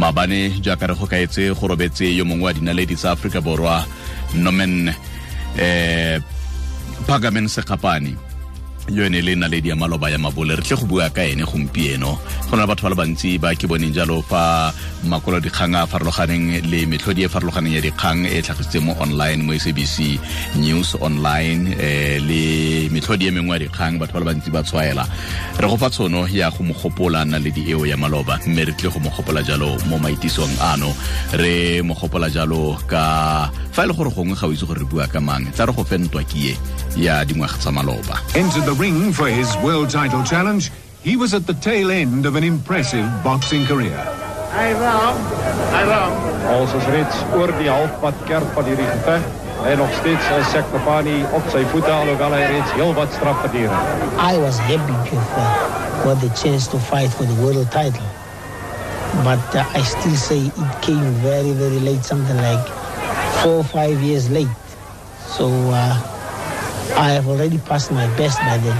Maabane jaaka re go kaetse go robetse yo mongwe wa dinaledi tsa Aforika Borwa, Norman Phagamen Sekgapane, yo ene le naledi ya maloba ya mabole. Re tle go bua ka ene gompieno. Go na le batho ba le bantsi ba ke boneng jalo fa makwalo dikgang a farologaneng le metlhodi e farologaneng ya dikgang e tlhagisitseng mo online, mo SABC News online, le metlhodi e mengwe ya dikgang, batho ba le bantsi ba tshwaela. Re go fa tshono ya go mo gopola naledi eo ya maloba, mme re tle go mo gopola jalo mo maitisong ano. Re mo gopola jalo ka fa e le gore gongwe ga o itse gore re bua ka mang, tla re go fe ntwa kie ya dingwaga tsa maloba. Entered the ring for his world title challenge, he was at the tail end of an impressive boxing career. Ons is reeds oor die halfpad kerf van hierdie geveg en nog steeds is Sekgapane op sy voete, alhoewel hy reeds heel wat straf verduur het. I was happy to have got the chance to fight for the world title, but I still say it came very, very late, something like 4 or 5 years late. So I have already passed my best by then.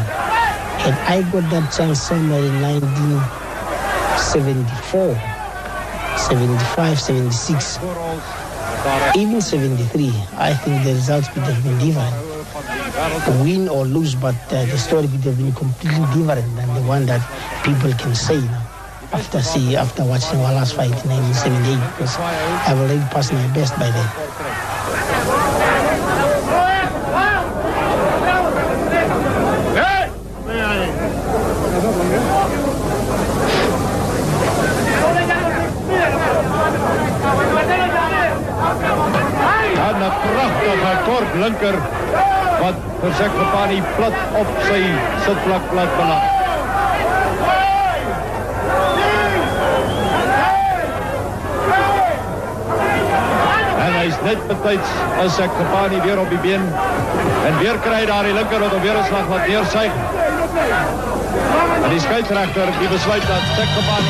Had I got that chance somewhere in 1974, 75, 76, even 73, I think the results could have been different. Win or lose, but the story could have been completely different than the one that people can say now. After watching our last fight in 1978, because I've already passed my best by then. En 'n pragtige kort linker wat vir Sekgapane plat op sy sitplek laat beland. En hy is net betyds as Sekgapane weer op die been en weer kry hy daar die linker wat hom weer 'n slag laat neersuig. En die skeieregter die besluit dat Sekgapane.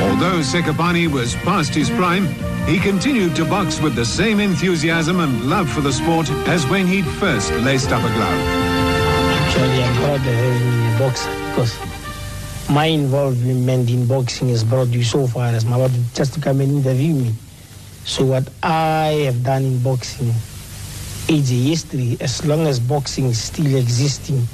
Although Sekgapane was past his prime, he continued to box with the same enthusiasm and love for the sport as when he'd first laced up a glove. Actually, I'm proud of having been a boxer because my involvement in boxing has brought you so far as my just to come and interview me. So what I have done in boxing is a history. As long as boxing is still existing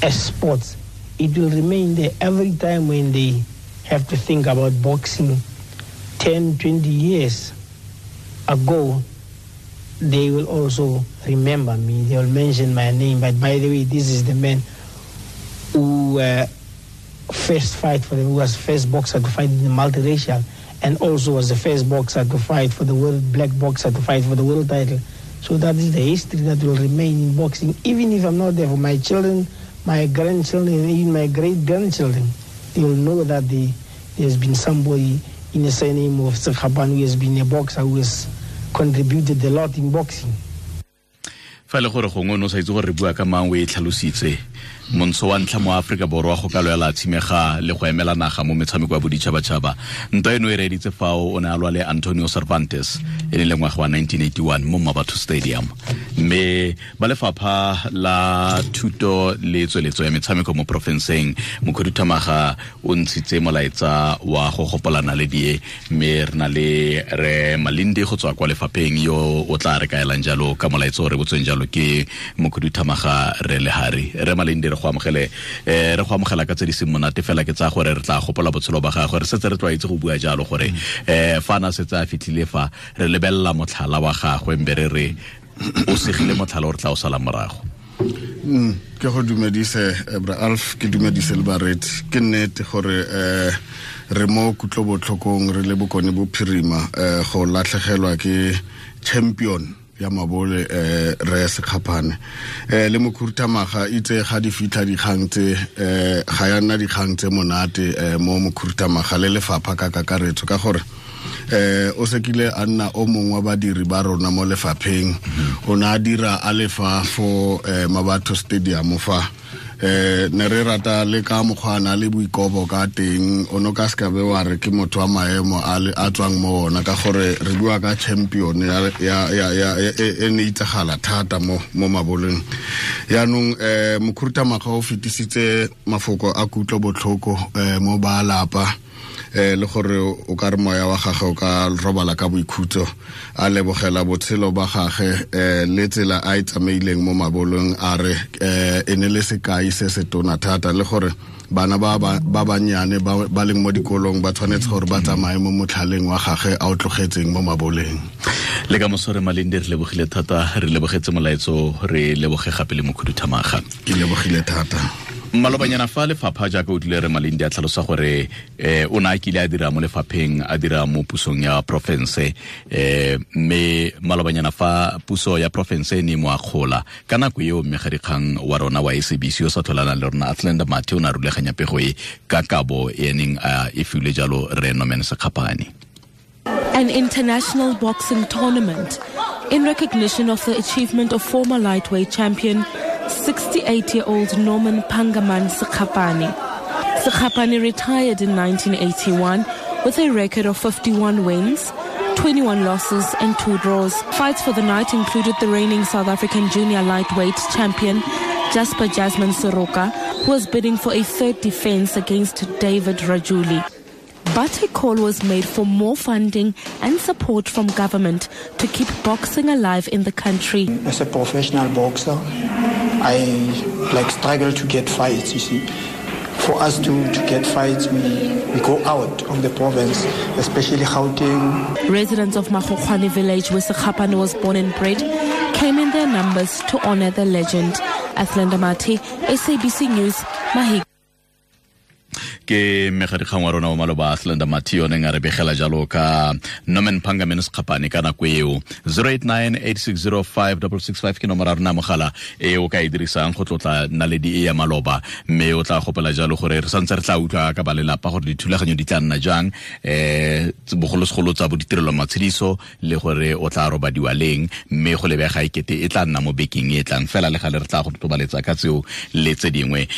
as sports, it will remain there. Every time when they have to think about boxing 10, 20 years ago, they will also remember me. They will mention my name. But by the way, this is the man who first fight for the, who was first boxer to fight in the multiracial, and also was the first boxer to fight for the world, black boxer to fight for the world title. So that is the history that will remain in boxing, even if I'm not there for my children, my grandchildren, and even my great-grandchildren. They will know that there's been somebody in the surname of Sekgapane who has been a boxer, who has contributed a lot in boxing. Fa le gore gongwe o ne o sa itse gore re bua ka mang, o e tlhalositse. Montsho wa ntlha mo Aforika Borwa go ka lwela tshimega le go emela naga mo metshameko ya boditšhabatšhaba. Ntwa eno e reeditse fao o ne a lwa le Antonio Cervantes e ne le ngwaga wa 1981 mo Mmabatho Stadium. Mme ba lefapha la thuto le tsweletso ya metshameko mo porofenseng, mokhuduthamaga o ntshitse molaetsa wa go gopola naledi e, mme re na le re Malindi go tswa kwa lefapheng yo o tla re kaelang jalo ka molaetsa o re botsweng jalo ke mokhuduthamaga re Lehari. Re Malindi, re go amogele, re go amogela ka tse di seng monate fela, ke tsaya gore re tla gopola botshelo ba gagwe. Re setse re tlwaetse go bua jalo gore fa na setse a fitlhile fa re lebelela motlhala wa gagwe, mbe re re o segile motlhala o re tla o sala morago. Ke go dumedise, Bra Alf, ke dumedise le bareetsi. Ke nnete gore re mo kutlobotlhokong re le Bokone Bophirima, go latlhegelwa ke champion ya mabole, re Sekgapane. Le mokhuduthamaga itse ga di fitlha dikgang tse, ga ya nna dikgang tse monate, mo mokhuduthamaga le lefapha ka kakaretso, ka gore o sekile a nna o mongwe wa badiri ba rona mo lefapheng. O ne a dira a lefa fo Mmabatho Stadium fa. Ne re rata le ka mokgwa a na le boikobo ka teng, o no ka se ka be wa re ke motho wa maemo a tswang mo ona, ka gore re bua ka champion ya e ne itsagala thata mo maboleng. Yaanong mokhuduthamaga o fetisitse mafoko a kutlo botlhoko mo ba lapa. Le gore o ka re moya wa gagwe o ka robala ka boikhutso, a lebogela botshelo ba gagwe le tsela a e tsamaileng mo mabolong, a re e ne le sekai se se tona thata, le gore bana ba bannyane ba leng mo dikolong ba tshwanetse gore ba tsamaye mo motlhaleng wa gagwe a o tlogetseng mo maboleng. Le ka moso re Malindi, re lebogile thata, re lebogetse molaetso, re leboge gape le mokhuduthamaga. Ke lebogile thata. Malobanyana fa lefapha jaaka o tlile re Malindi a tlhalosa gore o ne a kile a dira mo lefapheng, a dira mo pusong ya porofense, mme malobanyana fa puso ya porofense e ne mo akgola ka nako eo, mmegadikgang wa rona wa SABC o sa tlholanang le rona Athlenda Mathe o ne a rulaganya pego e ka kabo e neng a e filwe jalo re Norman Sekgapane. An international boxing tournament in recognition of the achievement of former lightweight champion 68-year-old Norman Pangaman Sekgapane. Sekgapane retired in 1981 with a record of 51 wins, 21 losses and 2 draws. Fights for the night included the reigning South African junior lightweight champion Jasper Jasmine Soroka, who was bidding for a third defense against David Rajuli. But a call was made for more funding and support from government to keep boxing alive in the country. As a professional boxer, I struggle to get fights, you see. For us to get fights, we go out of the province, especially Gauteng. Residents of Makgokgwane village, where Sekgapane was born and bred, came in their numbers to honor the legend. Athlenda Mathe, SABC News, Mahik. Ke mmegadikgang wa rona wa maloba Athlenda Mathe o neng a re begela jalo ka Norman Pangaman Sekgapane ka nako eo. 0898605665 ke nomoro ya rona mogala e o ka e dirisang go tlotla naledi e ya maloba, mme o tla gopela jalo gore re santse re tla utlwa ka ba lelapa gore dithulaganyo di tla nna jang, bogolosegolo tsa bo ditirelo matshediso le gore o tla robadiwa leng, mme go lebega ekete e tla nna mo bekeng e tlang fela le gale re tla go totobaletsa ka tseo le tse dingwe.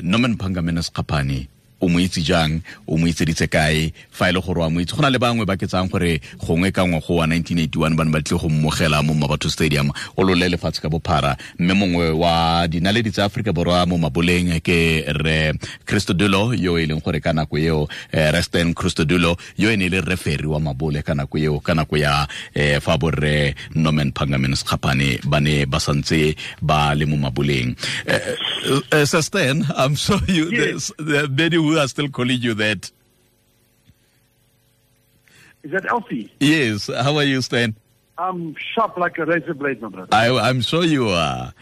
Norman Pangaman Sekgapane o mo itse jang, o mo itseditse kae, fa e le gore wa mo itse? Go na le bangwe ba ke tsang gore gongwe ka ngwaga wa 1981 ba ne ba tlile go mmogela mo Mmabatho Stadium o lole lefatshe ka bophara, mme mongwe wa dinaledi tsa Aforika Borwa mo maboleng ke re Christodulo, yo e leng gore ka nako eo Resten Christodulo, yo e ne e le referee wa mabole ka nako eo, ka nako ya fa borre Norman Pangaman Sekgapane ba ne ba santse ba le mo maboleng. Sir Stan, I'm sure you, yes. There are many who are still calling you that. Is that Alfie? Yes. How are you, Stan? I'm sharp like a razor blade, my brother. I'm sure you are.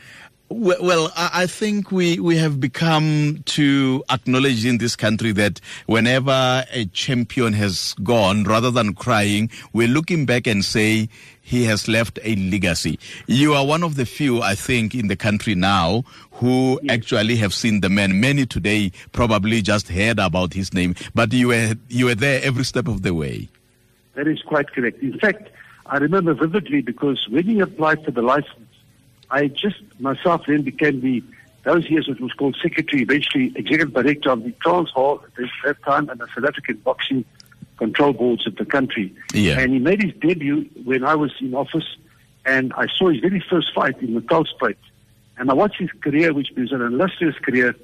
Well, I think we have become to acknowledge in this country that whenever a champion has gone, rather than crying, we're looking back and say he has left a legacy. You are one of the few, I think, in the country now who yes. actually have seen the man. Many today probably just heard about his name, but you were there every step of the way. That is quite correct. In fact, I remember vividly because when he applied for the license, I just myself then became those years it was called secretary, eventually executive director of the Transvaal at that time and the South African Boxing Control Boards of the country. Yeah. And he made his debut when I was in office, and I saw his very first fight in the Natalspruit. And I watched his career, which was an illustrious career,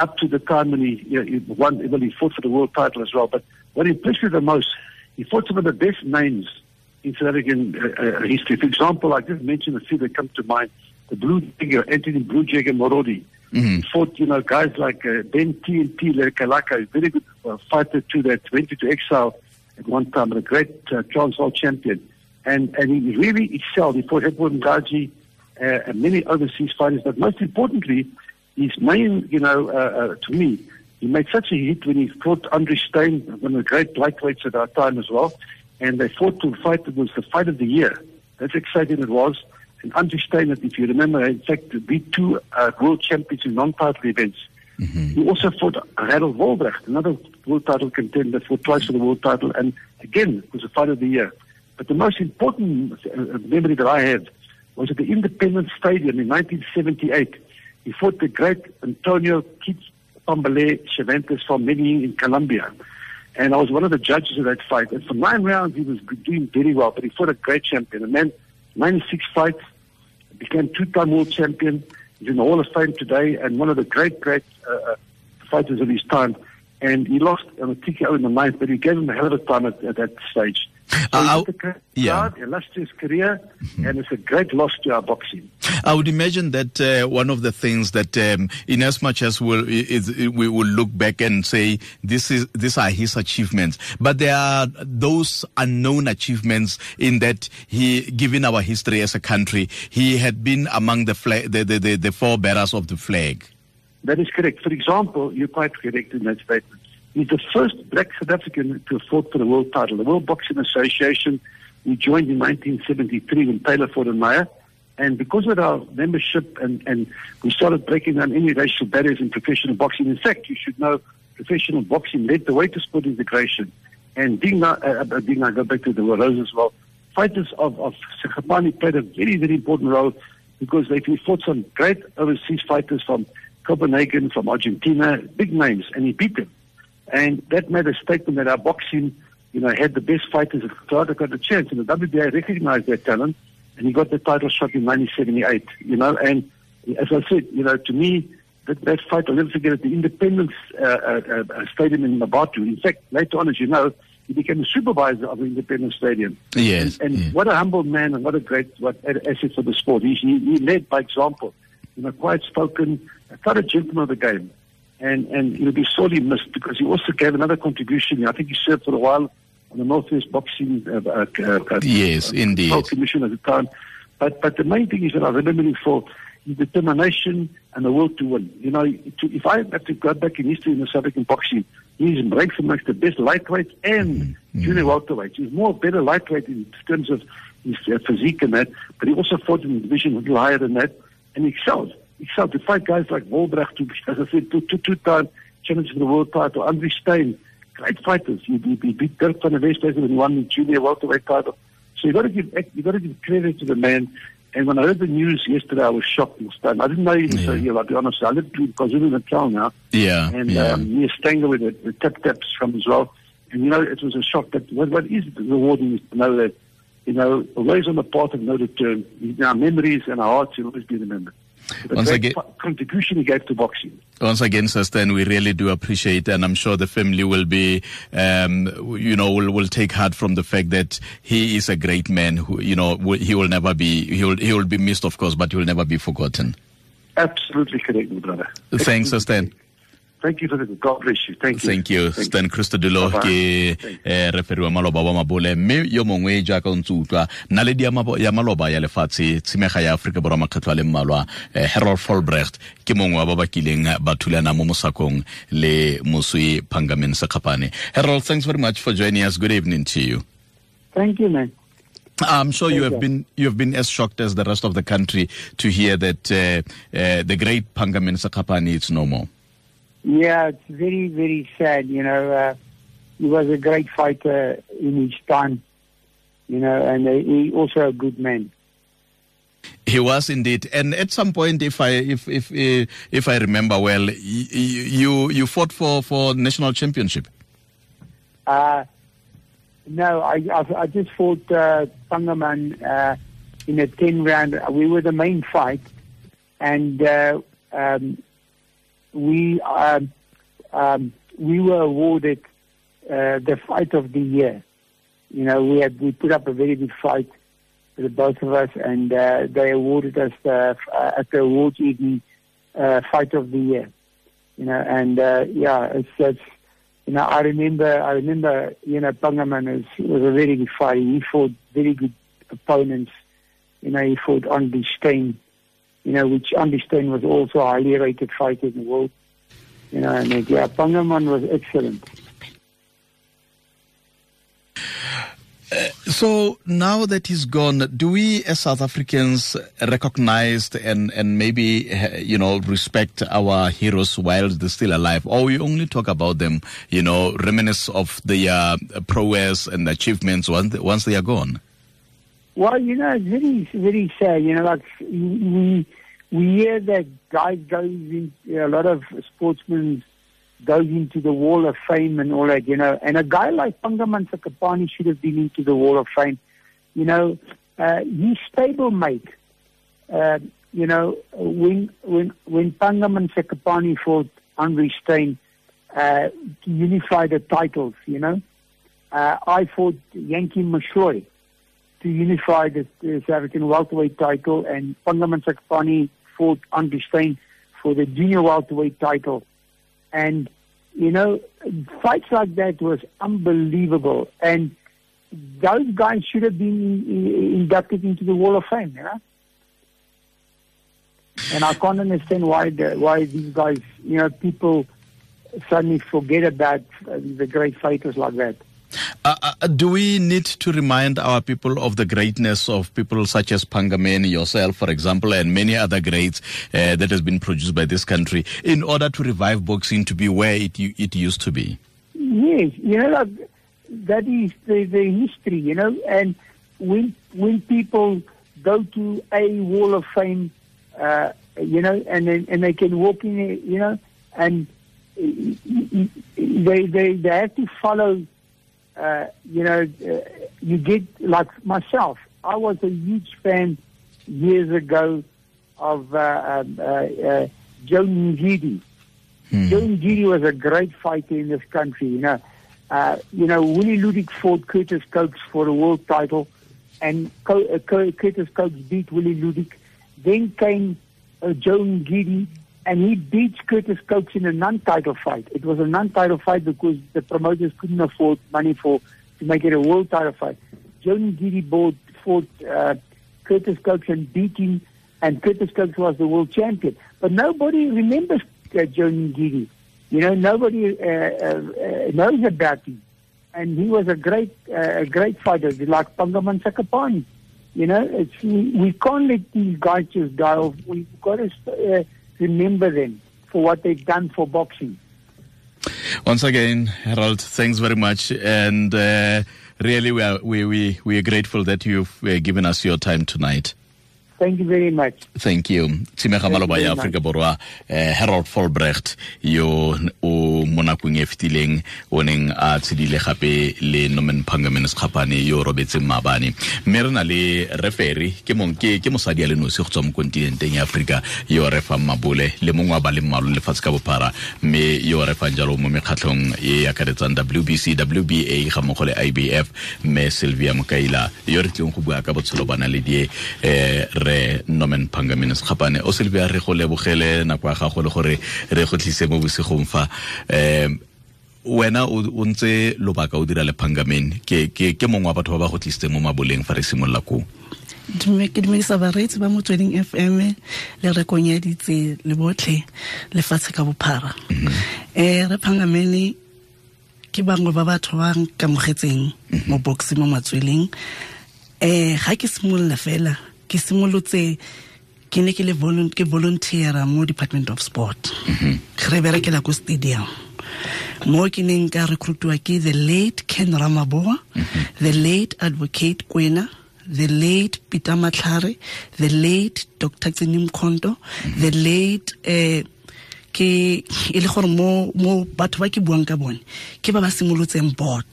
up to the time when he won, well, he fought for the world title as well. But what impressed me the most, he fought some of the best names in South African history. For example, I just mentioned a few that come to mind. The Blue Jagger, Anthony Blue Jagger Morodi. Mm-hmm. He fought, guys like Ben TNT Lekalaka, a very good fighter too, that went into exile at one time, and a great Transvaal champion. And he really excelled. He fought Edward Ngaji and many overseas fighters. But most importantly, his main, to me, he made such a hit when he fought Andre Stein, one of the great lightweights at our time as well. And they fought to a fight that was the fight of the year. That's exciting it was. And Andre Stein, if you remember, in fact, beat two world champions in non-title events. Mm-hmm. He also fought Harold Wolbrecht, another world title contender, fought twice for the world title, and again, it was a fight of the year. But the most important memory that I have was at the Independence Stadium in 1978. He fought the great Antonio Pambale Cervantes from Medellin in Colombia. And I was one of the judges of that fight. And for 9 rounds, he was doing very well, but he fought a great champion, a man, 96 fights, became two-time world champion. He's in the Hall of Fame today and one of the great, great fighters of his time. And he lost on a TKO in the 9th, but he gave him a hell of a time at that stage. So illustrious career, and it's a great loss to our boxing. I would imagine that one of the things that, in as much as we will look back and say these are his achievements, but there are those unknown achievements in that he, given our history as a country, he had been among the forebearers of the flag. That is correct. For example, you're quite correct in that statement. He's the first black South African to have fought for the world title. The World Boxing Association, we joined in 1973 when Taylor fought in Meyer. And because of our membership and we started breaking down any racial barriers in professional boxing. In fact, you should know professional boxing led the way to sport integration. And I go back to the Rose as well, fighters of Sekgapane played a very, very important role because they fought some great overseas fighters from Copenhagen, from Argentina, big names, and he beat them. And that made a statement that our boxing, you know, had the best fighters that got a chance. And the WBA recognized their talent, and he got the title shot in 1978, you know. And as I said, you know, to me, that fight, I'll never forget it, the Independence Stadium in Mmabatho. In fact, later on, as you know, he became the supervisor of the Independence Stadium. Yes. And what a humble man and what a great asset for the sport. He led by example, you know, quiet spoken, quite a gentleman of the game. And he'll be sorely missed because he also gave another contribution. I think he served for a while on the Northwest Boxing yes, indeed. Commission at the time. But the main thing is that I remember him for his determination and the will to win. You know, if I have to go back in history in the South African boxing, he's ranked amongst the best lightweights and junior welterweights. He's more better lightweight in terms of his physique and that, but he also fought in the division a little higher than that, and he excelled. Excelled to fight guys like Wolbrecht, who, as I said, two-time champions for the world title, Andre Steyn, great fighters. He beat Dirk van der Westhuizen when he won the junior welterweight title. So you got to give credit to the man. And when I heard the news yesterday, I was shocked and stunned. I didn't know he was so ill, I'll be honest. I live in KwaZulu-Natal now. Yeah. And near Stanger, where the tap-taps from as well. And, you know, it was a shock. But what is rewarding is to know that, you know, always on the path of no return, our memories and our hearts will always be remembered. Once again, contribution he gave to boxing. Once again, Sir Stan, we really do appreciate, and I'm sure the family will be, will take heart from the fact that he is a great man who, you know, he will never be, he will be missed, of course, but he will never be forgotten. Absolutely correct, my brother. Thanks, Sir Stan. Thank you for the God bless you. Thank you. Thank you. Stan Christodoulou ke referee wa maloba wa mabole mme yo mongwe jaaka o ntse utlwa naledi ya maloba ya lefatshe tshimega ya Afrika Borwa makgetlho a le mmalwa Harold Volbrecht ke mongwe wa ba ba kileng ba thulana mo mosakong le moswi Pangamen Sekgapane. Harold, thanks very much for joining us. Good evening to you. Thank you, man. I'm sure you have been as shocked as the rest of the country to hear that the great Pangamen Sekgapane is no more. Yeah, it's very, very sad, you know. He was a great fighter in his time, you know, and he also a good man. He was indeed. And at some point, if I remember well, you fought for national championship. No, I just fought Pangaman in a 10-round. We were the main fight, and we were awarded the fight of the year. You know, we put up a very good fight for the both of us, and they awarded us at the awards evening fight of the year. You know, and it's you know, I remember you know, Pangaman was a very good fighter. He fought very good opponents. You know, he fought Andre Steyn, you know, which Andre Steyn was also a highly rated fighter in the world. You know, and yeah, Pangaman was excellent. So now that he's gone, do we as South Africans recognize and maybe, you know, respect our heroes while they're still alive? Or we only talk about them, you know, reminisce of their prowess and achievements once they are gone? Well, you know, it's very, very sad. You know, like we hear that guys goes in, a lot of sportsmen goes into the Wall of Fame and all that, you know. And a guy like Pangaman Sekgapane should have been into the Wall of Fame. You know, his stablemate, you know, when Pangaman Sekgapane fought Andre Steyn, to unify the titles, you know. I fought Yankee Moshoy to unify the South African welterweight title, and Pangaman Sekgapane fought Andrew Steyn for the junior welterweight title. And, you know, fights like that was unbelievable. And those guys should have been inducted into the Wall of Fame, you know. And I can't understand why these guys, you know, people suddenly forget about the great fighters like that. Do we need to remind our people of the greatness of people such as Pangameni, yourself, for example, and many other greats that has been produced by this country in order to revive boxing to be where it used to be? Yes, you know, like, that is the history, you know. And when people go to a Wall of Fame, you know, and they can walk in, you know, and they have to follow. You know, you get, like myself, I was a huge fan years ago of Joe Ngidi. Joe Ngidi was a great fighter in this country, you know. You know, Willie Ludik fought Curtis Cokes for the world title, and Curtis Cokes beat Willie Ludik. Then came Joe Ngidi, and he beats Curtis Cokes in a non-title fight. It was a non-title fight because the promoters couldn't afford money to make it a world title fight. Joe Ngidi fought Curtis Cokes and beat him, and Curtis Cokes was the world champion. But nobody remembers Joe Ngidi. You know, nobody knows about him. And he was a great fighter, like Pangaman Sekgapane. You know, we can't let these guys just die off. We've got to remember them for what they've done for boxing. Once again, Harold, thanks very much. And really, we are grateful that you've given us your time tonight. Thank you very much. Thank you. Tshimega maloba ya Afrika Borwa, Harold Volbrecht yo o mo nakong e fetileng o neng a tshedile gape le Norman Pangaman Sekgapane yo robetseng maabane. Mme re na le referee ke mosadi a le nosi go tswa mo kontinenteng ya Afrika yo re fang mabole le mongwe wa ba le mmalwa lefatshe ka bophara, mme yo re fang jalo mo mekgatlhong e akaretsang WBC, WBA ga mmogo le IBF, mme Sylvia Mokaila yo re tleng go bua ka botshelo ba naledi re Norman Pangaman Sekgapane. O Sylvia, re go lebogele nako ya gago le gore re go tlise mo bosigong fa. Wena o ntse lobaka o dira le Pangaman, ke mongwe wa batho ba ba go tlisitseng mo maboleng fa re simolola koo. Ke dumedisa bareetsi ba Motsweding FM le rekong ya ditse le botlhe lefatshe ka bophara. Re Pangaman ke bangwe ba batho ba nkamogetseng mo boxing mo Matsweleng. Ga ke simolola fela, ke simolotse ke ne ke le volunteer mo Department of Sport. Re berekela ko stadium. Mo ke neng ka recruitwa ke the late Ken Ramaboa, the late Advocate Kwena, the late Peter Matlhare, the late Dr. Tsinim Mkhonto, the late ke e le gore mo batho ba ke buang ka bone ke ba ba simolotseng board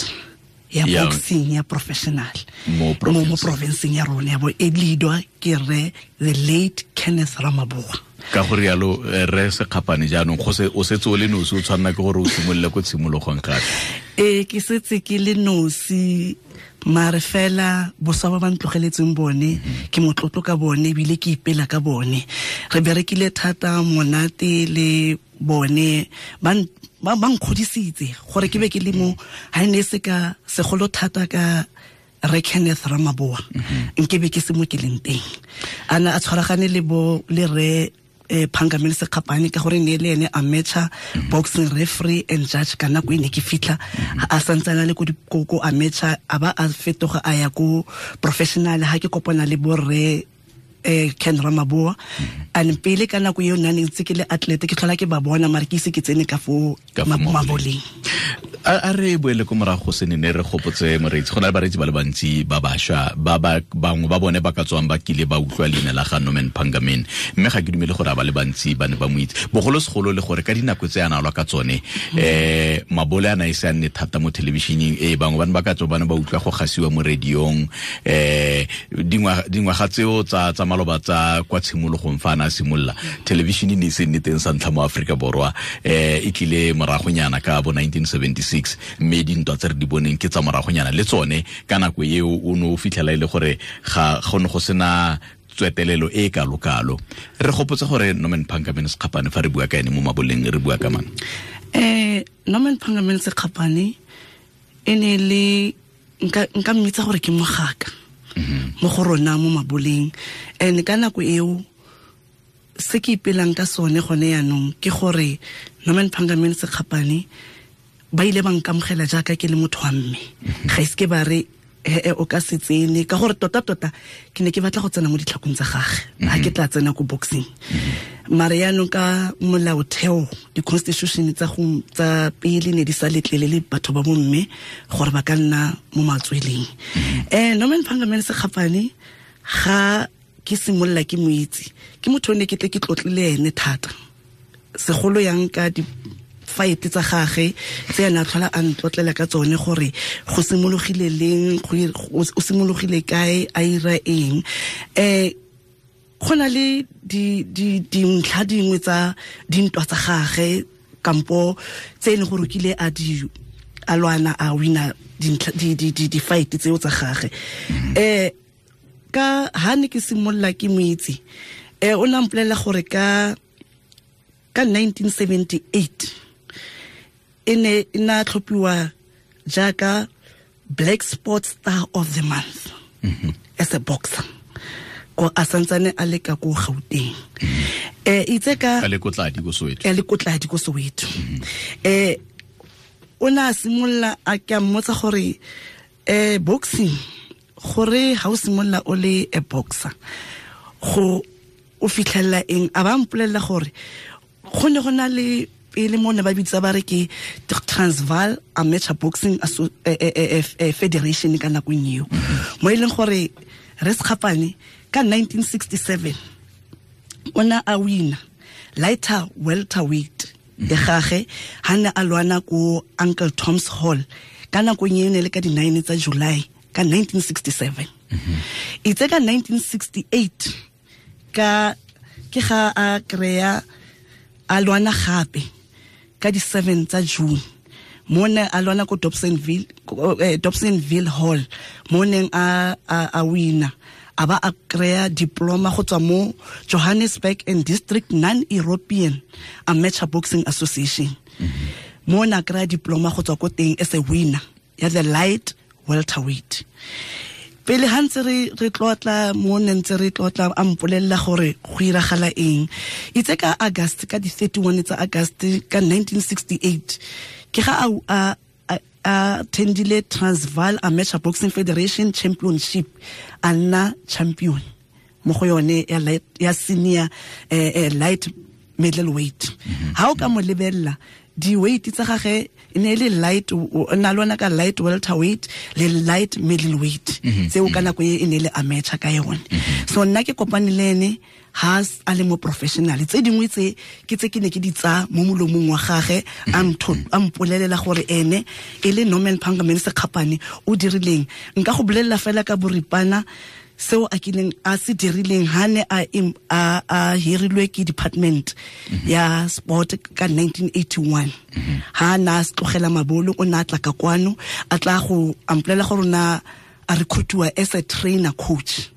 ya boxing ya professional mo provinceng ya rona ya bo e leadwa ke re the late Kenneth Ramaboa. Ka gore yalo re Sekgapane jaanong go se o setse o le nosi, o tshwanna ke gore o simolole ko tshimologong gape. Ke setse ke le nosi, mare fela boswa ba ba ntlogeletseng bone ke motlotlo ka bone ebile ke ipela ka bone. Re berekile thata monate le bone, ba nkgodisitse gore ke be ke le mo ha ne se ka segolo thata ka re Kenneth Ramaboa nke be ke se mo ke leng teng. Ana a tshwaragane le bo le re Pangaman Sekgapane ka gore ne le ene amateur boxing referee and judge ka nako e ne ke fitlha a santsana le ko ko amateur a ba a fetoga a ya ko professional. Ha ke kopana le bo re Ken Ramaboa and pele ka nako eo nna ne ntse ke le athlete ke tlhola ke ba bona mare ke ise ke tsene ka fo maboleng. A re boele ko morago se ne re gopotse moreetsi, go na le bareetsi ba le bantsi ba bašwa ba bangwe ba bone ba ka tswang ba kile ba utlwa leina la ga Norman Pangaman, mme ga ke dumele gore a ba le bantsi ba ne ba mo itse bogolosegolo le gore ka dinako tse a na lwa ka tsone mabole a na e se a nne thata mo thelebišeneng e bangwe ba ne ba ka tswa ba ne ba utlwa go gasiwa mo radiong. Dingwaga tseo tsa maloba tsa kwa tshimologong fa a na simolola, television e ne e se nne teng sa ntlha mo Aforika Borwa, e tlile moragonyana ka bo 1976, mme dintwa tse re di boneng ke tsa moragonyana le tsone. Ka nako eo o ne o fitlhela e le gore ga go ne go sena tswetelelo e kalo-kalo. Re gopotse gore Norman Phangamene Sekgapane, fa re bua ka ene mo maboleng, re bua ka mang? Norman Phangamene Sekgapane e ne le nka mmitsa gore ke mogaka mo go rona mo maboleng. And ka nako eo se ke ipelang ka sone gone yaanong ke gore Norman Phangamene Sekgapane ba ile ba nkamogela jaaka ke le motho wa mme. Ga ise ke ba re o ka se tsene, ka gore tota-tota ke ne ke batla go tsena mo ditlhakong tsa gage ga ke tla tsena ko boxing. Mare yaanong ka molaotheo, di-constitution tsa pele ne di sa letlelele batho ba bomme gore ba ka nna mo matsweleng. Norman Phangamene Sekgapane ga ke simolola ke mo itse, ke motho o ne ke tle ke tlotlile ene thata, segolo yang ka di fight tsa gage tse ena tlhola a ntlotlela ka tsone gore go simologile leng, o simologile kae, a ira eng. Go na le dintlha dingwe tsa dintwa tsa gage kampo tse e leng gore o kile a di a lwana a wina di-fight tseo tsa gage. Ka ha ne ke simolola ke mo itse, o ne a mpolelela gore ka 1978 e ne e na tlhophiwa jaaka Black Sports Star of the Month as a boxer, ko a santsane a le ka ko Gauteng. Itse ka a le ko Tladi ko Soweto. A le ko Tladi ko Soweto. O na simolola a ke a mmotsa gore boxing, gore ha o simolola o le a boxer go o fitlhella eng. A ba mpolelela gore go ne go na le pele mo ne ba bitsa ba re ke Transvaal Amateur Boxing Federation ka nakong eo, mo e leng gore re Sekgapane ka 1967 o ne a wina lighter welterweight ya gage ha ne a lwana ko Uncle Tom's Hall ka nakong eo ne le ka di-9 tsa July ka 1967. Itse ka 1968 ka ke ga a kry-a a lwana gape ka di-7 tsa June, mo ne a lwana ko Dobsonville Hall, mo neng a wina, a ba a kry-a diploma go tswa mo Johannesburg and District Non-European Amateur Boxing Association. Mo ne a kry-a diploma go tswa ko teng as a winner ya the light welterweight. Pele ha ntse re tlotla mo ne ntse re tlotla, a mpolelela gore go iragala eng. Itse ka August, ka di-31 tsa August ka 1968, ke ga a attendile Transvaal Amateur Boxing Federation Championship, a nna champion mo go yone ya senior light middleweight. Ha o ka mo lebella di-weight tsa gage e ne le light, na lwana ka light welterweight le light middleweight, tseo ka nako e ne le amateur ka yone. So nna ke kopane le ene ha a le mo professional. Tse dingwe tse ke tse ke ne ke di tsa mo molomong wa gage, a mpolelela gore ene e le Norman Phangamene Sekgapane o dirileng. Nka go bolelela fela ka boripana seo a kileng a se dirileng ha ne a hirilwe ke department ya sport ka 1981. Ha na tlogela mabolo, o na tla ka kwano a tla go ampolela gore na a recruitiwa as a trainer coach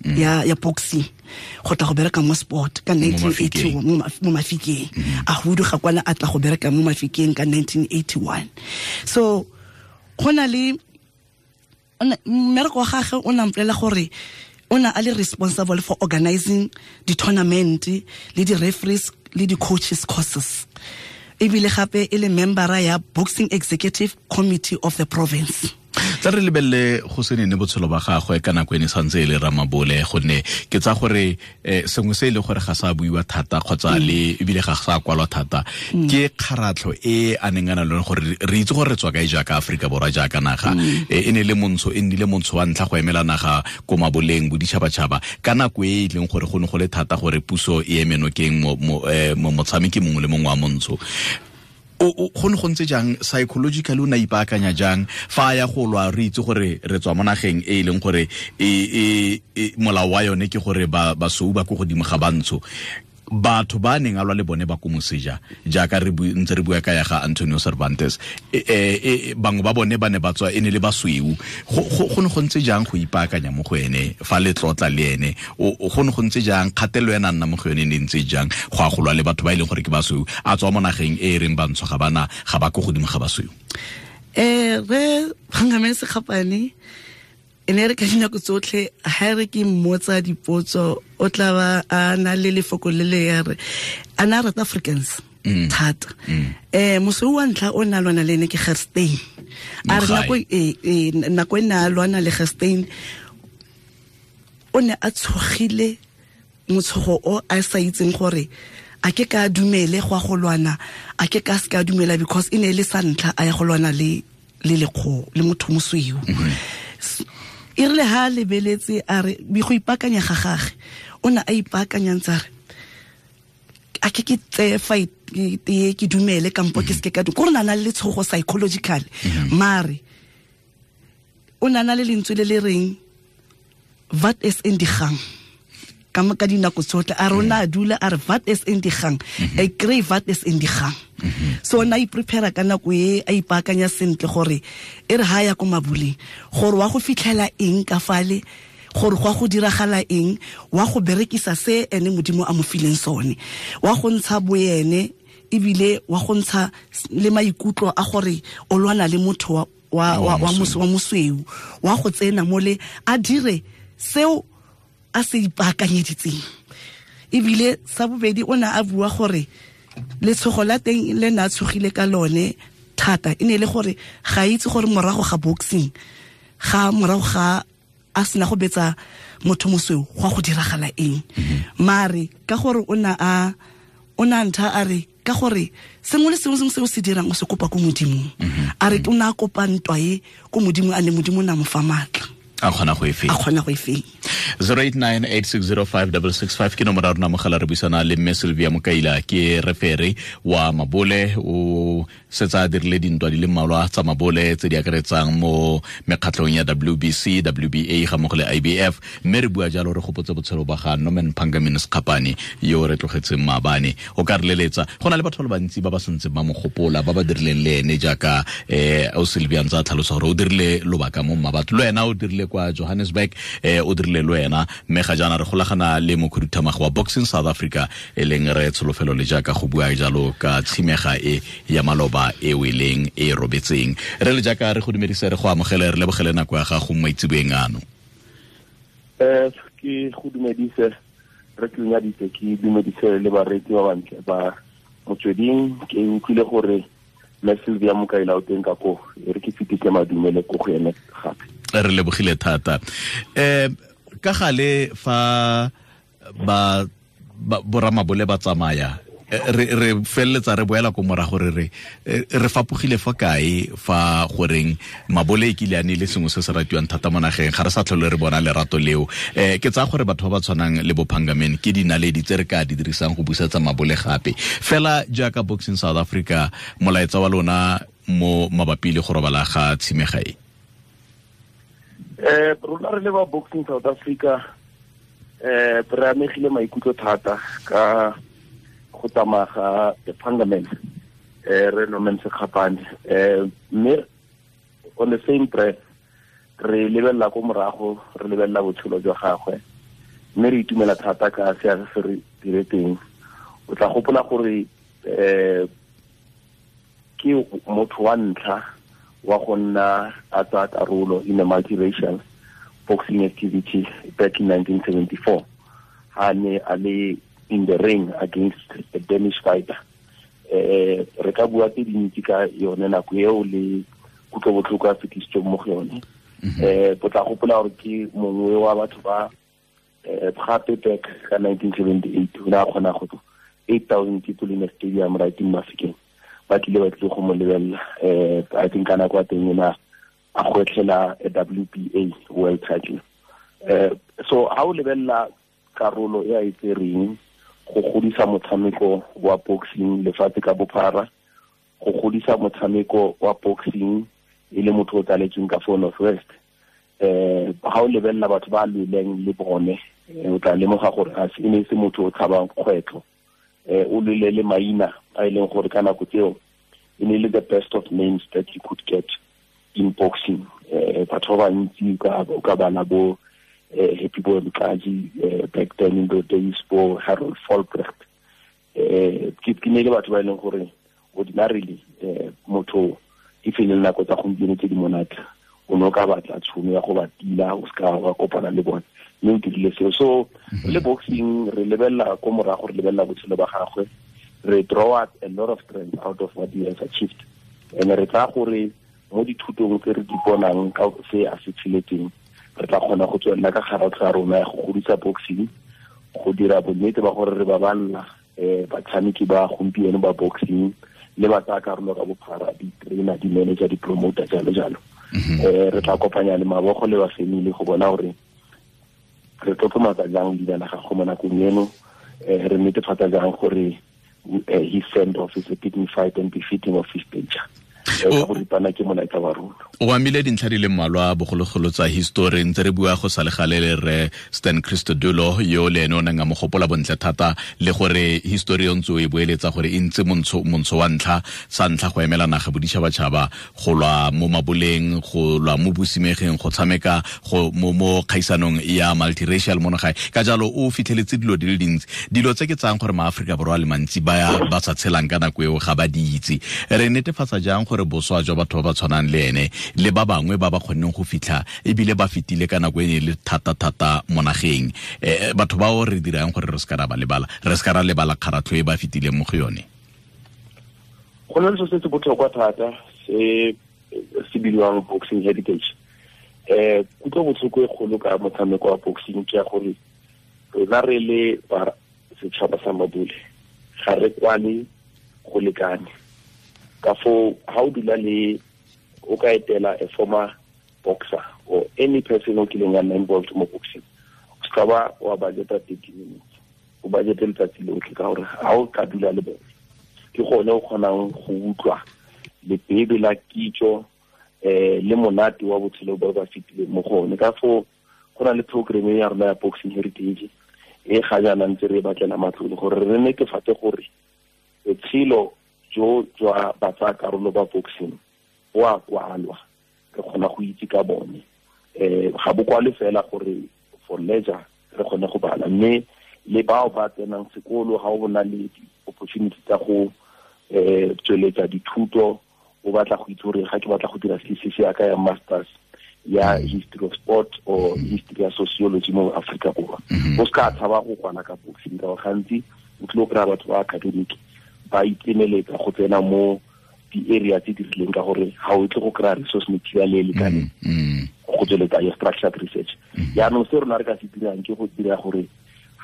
ya boxing go tla go bereka mo sport ka 1981 mo Mafikeng. A huduga kwana a tla go bereka mo Mafikeng ka 1981. So go na le mmereko wa gagwe, o na mpolelela gore o na a le responsible for organizing di-tournament le di-referees le di-coaches courses, ebile gape e le membera ya Boxing Executive Committee of the province. Tla re lebelele go se nene botshelo ba gagwe ka nako e ne santse e le ramabole, gonne ke tsa gore sengwe se e le gore ga sa buiwa thata kgotsa le ebile ga sa kwalwa thata ke kgaratlho e a neng a na le gore re itse gore re tswa kae jaaka Aforika Borwa jaaka naga. E ne le montsho, e nnile montsho wa ntlha go emela naga ko maboleng boditšhabatšhaba ka nako e e leng gore go ne go le thata gore puso e eme nokeng motshameki mongwe le mongwe wa montsho. O go ne go ntse jang psychologically, o ne ipaakanya jang fa ya go lwa? Re itse gore re tswa mo nageng e leng gore e molao wa yone ke gore basweu ba ko godimo ga bantsho. Batho ba neng a lwa le bone ba ko moseja, jaaka re ntse re bua ka ya ga Antonio Cervantes, bangwe ba bone ba ne ba tswa e ne le basweu. Go ne go ntse jang go ipaakanya mo go ene fa le tlotla le ene? Go ne go ntse jang kgatelelo ena nna mo go yone ne ntse jang go a go lwa le batho ba e leng gore ke basweu, a tswa mo nageng e e reng bantsho ga bana ga ba ko godimo ga basweu? Re Phangameni Sekgapane e ne re ka dinako tsotlhe ha re ke mmotsa dipotso, o tla ba a na le lefoko le le ya re a na rata Africans thata. Mosweu wa ntlha o na lwana le ene ke Gerstein. A re nako e ne a lwana le Gerstein, o ne a tshogile motshogo o a sa itseng gore a ke ka dumele go a go lwana, a ke ka se ka dumela, because e ne e le sa ntlha a ya go lwana le lekgo le motho mosweu. E rile ha lebeletse a re go ipaakanya ga gagwe, o ne a ipaakanya ntse a re a ke tseye fight ke dumele kampo ke seke ka ko re na le letshogo psychological. Mare o na le lentswe le le reng wat is in die gang ka dinako tsotlhe. A rona a dula a re wat is in die gang, e kry wat is in die gang. So na iprepare ka nako e a ipaakanya sentle gore e re ha ya ko mabuleng gore wa go fitlhela eng ka fale, gore go go diragala eng, wa go berekisa se ene Modimo a mo fileng sone, wa go ntsha boene ebile wa go ntsha le maikutlo a gore o lwana le motho wa mosweu, wa go tsena mole a dire seo a se ipaakanyeditseng. Ebile sa bobedi o ne a bua gore letshogo la teng le ne a tshogile ka lone thata e ne le gore ga itse gore morago ga boxing, ga morago ga a sena go betsa motho mosweu go go diragala eng. Mare ka gore o ne a ntha a re ka gore sengwe le sengwe se o se dirang o se kopa ko Modimong. A re o ne a kopa ntwa e ko Modimo, a ne Modimo na mo fa maatla a kgona go e fenya. 0898605665 ke nomoro ya rona mogala. Re buisana le mme Sylvia Mokaila, ke refere wa mabole, o setsa a dirile dintwa di le mmalwa tsa mabole tse di akaretsang mo mekgatlhong ya WBC, WBA ga mmogo le IBF. Mme re bua jalo re gopotse botshelo ba ga Norman Phangameni Sekgapane yo re tlogetseng maabane. O ka re leletsa, go na le batho ba le bantsi ba ba santseng ba mo gopola, ba ba dirileng le ene jaaka o Sylvia ntse a tlhalosa gore o dirile lobaka mo Mmabatho, le wena o dirile kwa Johannesburg, o dirile le wena. Mme ga jaana re golagana le mokhuduthamaga wa Boxing South Africa e leng re Tsholofelo le jaaka go bua jalo ka tshimega e ya maloba e weleng e robetseng. Re le jaaka re go dumedise, re go amogele, re lebogele nako ya gago mo maitseboeng ano. Ke go dumedise, re ke nyadise, ke dumedise le bareetsi ba bantle ba Motsweding. Ke utlwile gore mme Sylvia Mokaila o teng ka ko, e re ke fetise madumele ko go ene gape. Re lebogile thata. Ka gale fa ba boramabole ba tsamaya, re feleletsa re boela ko morago re re fapogile fa kae fa goreng mabole e kile a ne le sengwe se se ratiwang thata mo nageng, ga re sa tlhole re bona lerato leo. Ke tsaya gore batho ba ba tshwanang le bo Phangameni ke dinaledi tse re ka di dirisang go busetsa mabole gape. Fela jaaka Boxing South Africa, molaetsa wa lona mo mabapi le go robala ga tshimega e? Rona re le ba Boxing South Africa re amegile maikutlo thata ka go tsamaya ga the Phangameni, re Norman Sekgapane. Mme on the same breath re lebelela ko morago, re lebelela botshelo jwa gagwe, mme re itumela thata ka seabe se re diretseng. O tla gopola gore ke motho wa ntlha wa go nna a tsaya karolo in a multiracial boxing activity back in 1974, ha ne a le in the ring against a Danish fighter. Re ka bua tse dintsi ka yone nako eo le kutlobotlhoko a fetisitsweng mo go yone. O tla gopola gore ke mongwe wa batho ba gape back ka 1978 o ne a kgona go 8,000 people in a stadium right in Mafikeng ba tlile go mo lebelela. I think ka nako ya teng ena a gwetlhela a WBA world title. So ha o lebelela karolo e a e tsereng go godisa motshameko wa boxing lefatshe ka bophara, go godisa motshameko wa boxing e le motho o tsaletsweng ka fo North West. Ga o lebelela batho ba lweleng le bone, o tla lemoga gore a se ne se motho o tshabang kgwetlho. O lwele le maina a e leng gore ka nako tseo e ne le the best of names that you could get in boxing. Batho ba bantsi o ka bala bo Happy Boy Mkaji, back then in the days, bo Harold Folbrecht. Ke ne le batho ba e leng gore ordinarily motho e fele nako tsa gompieno tse di monate o ne o ka batla tšhono ya go ba tila, o seka wa kopana le bone, mme o dirile seo. So le boxing re lebelela ko morago, re lebelela botshelo ba gagwe, re draw out a lot of strength out of what he has achieved. And re tsaya gore mo dithutong tse re di bonang ka se a se tsheletseng, re tla kgona go tswelela ka kgaratlho ya rona ya go godisa boxing, go dira bonnete ba gore re baballa batshameki ba gompieno ba boxing le ba tsaya karolo ka bophara, di-trainer, di-manager, di-promoter, jalo jalo. Re tla kopanya le mabogo le ba family go bona gore re tlotlomatsa jang leina la gagwe mo nakong eno, re netefatsa jang gore his send off is a dignified and befitting of his stature. O amile dintlha di le mmalwa bogologolo tsa history, ntse re bua go sa le gale le re Stan Christodoulou yo le ene o neng a mo gopola bontle thata, le gore history o ntse o e boeletsa gore e ntse montsho wa ntlha sa ntlha go emela naga boditšhabatšhaba, go lwa mo maboleng, go lwa mo bosimegeng, go tshameka go mo kgaisanong ya multiracial mo nagae. Ka jalo o fitlheletse dilo di le dintsi, dilo tse ke tsayang gore maAforika Borwa a le mantsi ba sa tshelang ka nako eo ga ba di itse. Re netefatsa jang gore boswa jwa batho ba ba tshwanang le ene le ba bangwe ba ba kgonneng go fitlha ebile ba fetile ka nako e ne le thata-thata mo nageng, batho bao re dirang gore re se ka ra ba lebala, re se ka ra lebala kgaratlho e ba fetileng mo go yone? Go na le se se botlhokwa thata se se bidiwang boxing heritage. Kutlo botlhoko e kgolo ka motshameko wa boxing ke ya gore rona re le ba setšhaba sa Mabule ga re kwane go lekane. Ka foo ha o dula le o ka etela a former boxer or any person o kileng a nna involved mo boxing, o ska ba wa budgeta 30 minutes, o budgete letsatsi lotlhe, ka gore ha o ka dula le bone ke gone o kgonang go utlwa lebebe la kitso le monate wa botshelo ba ba fetileng mo go one. Ka foo go na le program ya rona ya boxing heritage e ga jaana ntse re batlela matlole gore re netefatse gore botshelo jo jwa ba tsaya karolo ba boxing bo a kwalwa, re kgona go itse ka bone. Ga bo kwale fela gore for leisure re kgone go bala, mme le bao ba tsenang sekolo ga o bona le opportunity tsa go tsweletsa dithuto, o batla go itse gore ga ke batla go dira thesis ya ka ya masters ya history of sport or history ya sociology mo Afrika Borwa, o ska tshaba go kwana ka boxing, ka gore gantsi o tlile go kry-a batho ba academic ba itemeletsa go tsena mo di-area tse di rileng, ka gore ga o tle go kry-a resource material e lekaneng go tsweletsa ya structured research. Jaanong se rona re ka se dirang ke go dira gore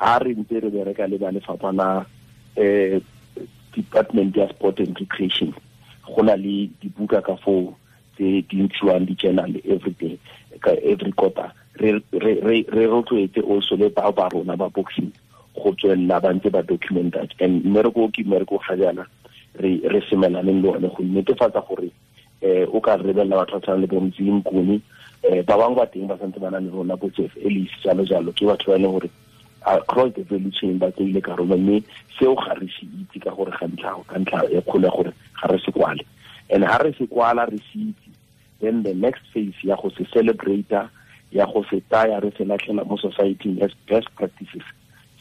ga re ntse re bereka le ba lefapha la department ya sport and recreation, go na le dibuka ka foo tse di ntshiwang di-journal every day, every quarter. Re rotloetse also le bao ba rona ba boxing go tswelela ba ntse ba documenta. And mmereko ke mmereko ga jaana re semelaneng le one go netefatsa gore o ka rebelela batho ba tshwana le bo Mzi Mnguni, ba bangwe ba teng ba santse ba na le rona, bo Jeff Ellis, jalo jalo, ke batho ba e leng gore across the value chain ba tseile karolo, mme seo ga re se itse ka gore ga ntlha e kgolo ya gore ga re se kwale. And ha re se kwala re se itse, then the next phase ya go se celebrate, ya go se tsaya re se latlhela mo society as best practices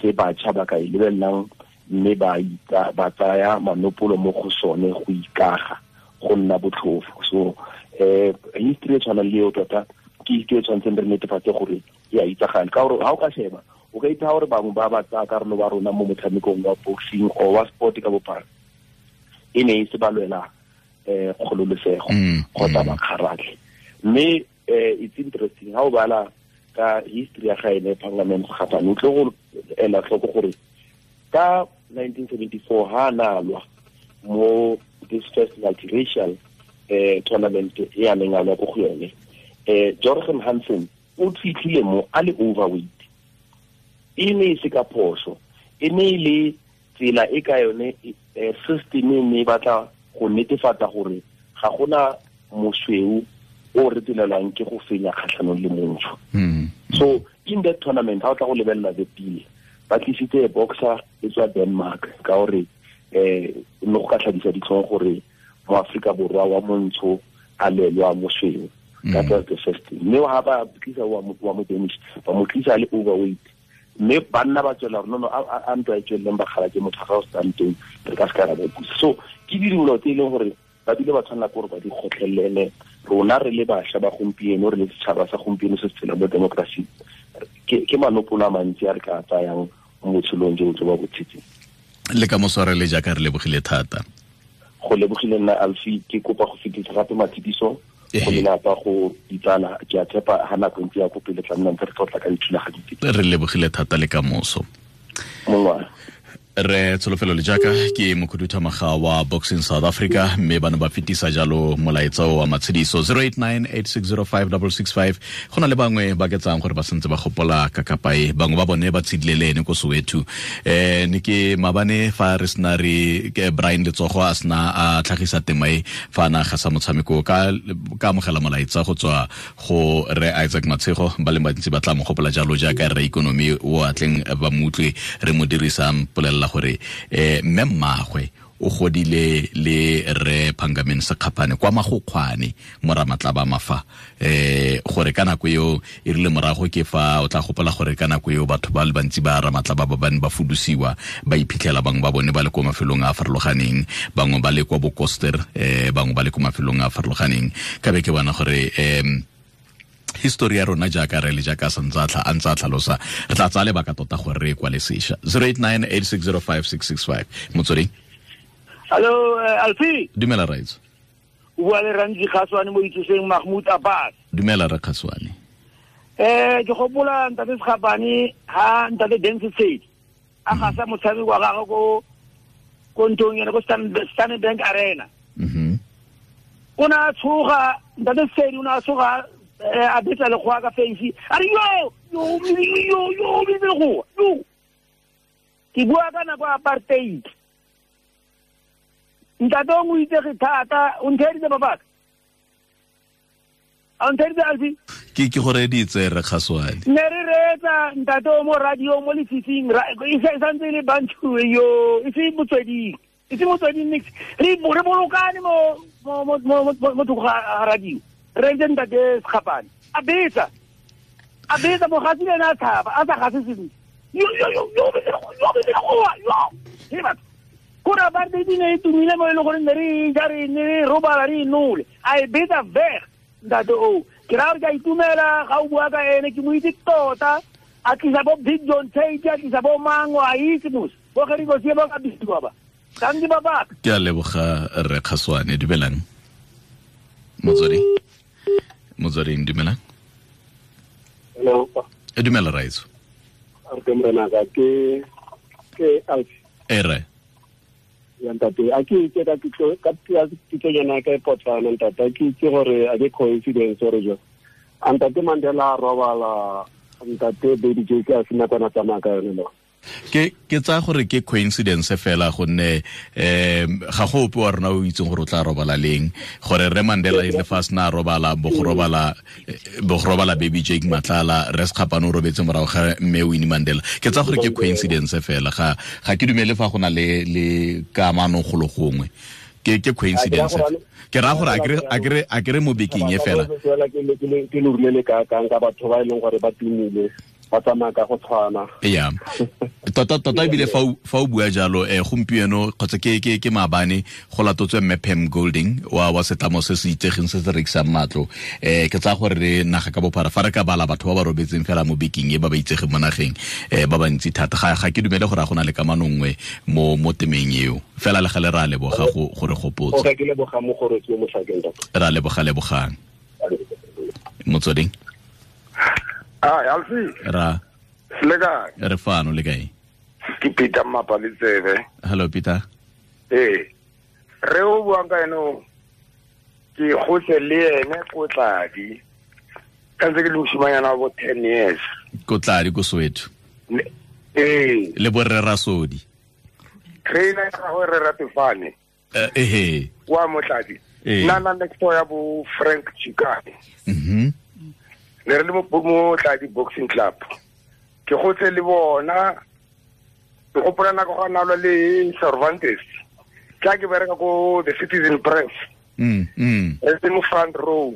tse batjha ba ka e lebelelang, mme ba tsaya manopolo mo go sone go ikaga go nna botlhofo. So history e tshwanang le eo tota ke history e tshwanetseng re netefatse gore e a itsagale, ka gore ha o ka sheba o ka itha gore bangwe ba ba tsaya karolo ba rona mo motshamekong wa boxing or wa sport ka bophara e ne e se ba lwela kgololosego kgotsa ba kgaratlhe. Mme it's interesting ha o bala ka history ya gaene Parliament Kgapane, o tle go ela tlhoko gore ka 1974 ha na lwa mo this first multiracial tournament e a neng a lwa ko go yone, Jorgen Hansen o fitlhile mo a le overweight. E ne e se ka phoso, e ne e le tsela e ka yone system e ne e batla go netefatsa gore ga gona mosweu o retelelwang ke go fenya kgatlhanong le montsho. So in that tournament ha o tla go lebelela the pele ba tlisitse boxer e tswa Denmark ka gore no go ka tlhabisa ditlhong gore mo Afrika Borwa wa montsho a lelwa mosweu. That was the first thing. Mme ha ba tlisa wa mo Danish ba mo tlisa le overweight mme banna ba tswela gore no a ntwa e tsweleleng ba kgala ke motho ga o stang teng re ka se ka ra ba busa. So ke dilo tse e leng gore ba bile ba tshwanela ke gore ba di kgotlhelele. Rona re le bašwa ba gompieno, re le setšhaba sa gompieno se se tshelang mo democracy, ke manopolo a mantsi a re ka tsayang mo botshelong jo bo ba bo tshetseng. Le ka moso re le jaaka re lebogile thata. Go lebogile nna Alfie, ke kopa go fetisa gape matshidiso go lelapa, go ditsala. Ke a tshepa ha nako ntse ya ko pele tla nna ntse re tlotla ka dithulaganyo tse. Re lebogile thata le ka moso. Re Tsholofelo Lejaka ke mokhuduthamaga wa Boxing South Africa, mme ba ne ba fetisa jalo molaetsa wa matshediso 0898605665. Go na le bangwe ba ke tsang gore ba santse ba gopola kakapae, bangwe ba bone ba tshedile le ene ko Soweto. Ne ke mabane fa re sena re ke Brian Letsogo a sena a tlhagisa tema e fa na gasa motshameko ka amogela molaetsa go tswa go re Isaac Matshego, ba le bantsi ba tla mo gopola jalo jaaka re economy o atleng ba mutlwe re mo dirisang polela gore mme mmagwe o godile le re Phangameni Sekgapane kwa Magokgwane moramatlaba mafa, gore ka nako eo e rile morago ke fa o tla gopola gore ka nako eo batho ba le bantsi ba ramatlaba ba bane ba fudusiwa ba iphitlhela bangwe ba bone ba le kwa mafelong a a farologaneng, bangwe ba le kwa Bokoster, bangwe ba le kwa mafelong a a farologaneng. Ka be ke bona gore history ya rona jaaka re le jaaka santse a ntse a tlhalosa, re tla tsaya lebaka tota gore re kwale sešwa. 0898605665. Motsweding. Hello, Alfie. Dumela Raitso. O bua le Ranji Kgaswane mo itsoseng Mahmoud Abbas. Dumela re Kgaswane. Ke gopola ntate Sekgapane ha ntate Dance State a gasa motshameko wa gagwe ko nthong ene ko Standard Bank Arena. O ne a tshoga ntate State, o ne a tshoga a betsa lekgowa ka face, a re yo yo yo yo yo yo. Ke bua ka nako ya apartheid. Ntate o mo itsege thata, o ntheeditse babaka, a ntheeditse Alfie? Ke go reeditse re Kgaswane. Ne re reetsa ntate o mo radio mo lefifing, e santse e le bantu yo, e se motsweding, e se motsweding nix. Re bolokane mo thoko ga radio. Re ntse ntate Sekgapane a betsa mogatsi le ene a tshaba a sa gase sentle. Yo yo yo yo yo yo batho kore apartheid ne e tumile mo e leng gore ne re ja re ne re robala re inole, a e betsa veg ntate o. Ke raya gore ke a itumela ga o bua ka ene, ke mo itse tota. A tlisa bo Big John Tate, a tlisa bo Mango, a itse mos bo Gerikosie ba ka bisiwa ba thanki babaka. Ke a leboga re Kgaswane. Dumelang Motsweding. Motsweding, dumelang. Hello. Dumela Raitso. Re morena ka ke Alfie. Ere. Ya ntate, a ke itse ka kitlo yana ka potlana ntate, a ke itse gore a ke coincidence gore jo. Ntate Mandela a robala ntate Baby J ka sena kwana tsamaya ka yone lo. Ke tsa gore ke coincidence fela gonne ga go ope wa rona o itseng gore o tla robala leng, gore re Mandela e le fa sena robala bo go robala Baby Jake Matlala, re Sekgapane o robetse morago ga mme Winnie Mandela. Ke tsa gore ke coincidence fela, ga ke dumele fa go na le kamano golo gongwe. Ke coincidence. Ke ra gore a kere mo bekeng e fela. Ke lo rulele ka ka batho ba e leng gore ba tumile, ba tsamaya ka go tshwana. Yeah. Tota ebile fa o bua jalo gompieno kgotsa ke maabane go latotswe mme Pam Golding wa setlamo se se itsegeng se se rekisang matlo. Ke tsaya gore re naga ka bophara fa re ka bala batho ba ba robetseng fela mo bekeng e ba ba itsegeng mo nageng ba bantsi thata. Ga ke dumele gore a go na le kamano nngwe mo temeng eo. Fela le gale re a leboga go re gopotsa. Okay, ke leboga mo gore ke mo tlhakeng tota. Re a leboga lebogang. Motsweding. Alfie. Ra. Le kae? Re fano, le kae? Ke Peter Mapaletsebe. Hello Peter. Ee. Re o buang ka ene o ke gotse le ene ko Tladi. Ka ntse ke le mosimanyana wa bo 10 years. Ko Tladi ko Soweto. Ee. Le borre Rasodi. Trainer ya gagwe re Ratefane. Ehe. Wa Motladi. Nna na next door ya bo Frank Chikane. Ne re le mo Motladi Boxing Club. Ke gotse le bona. Ke gopola nako ga na lwa le Cervantes. Tla ke bereka ko the Citizen Press. Re le mo front row.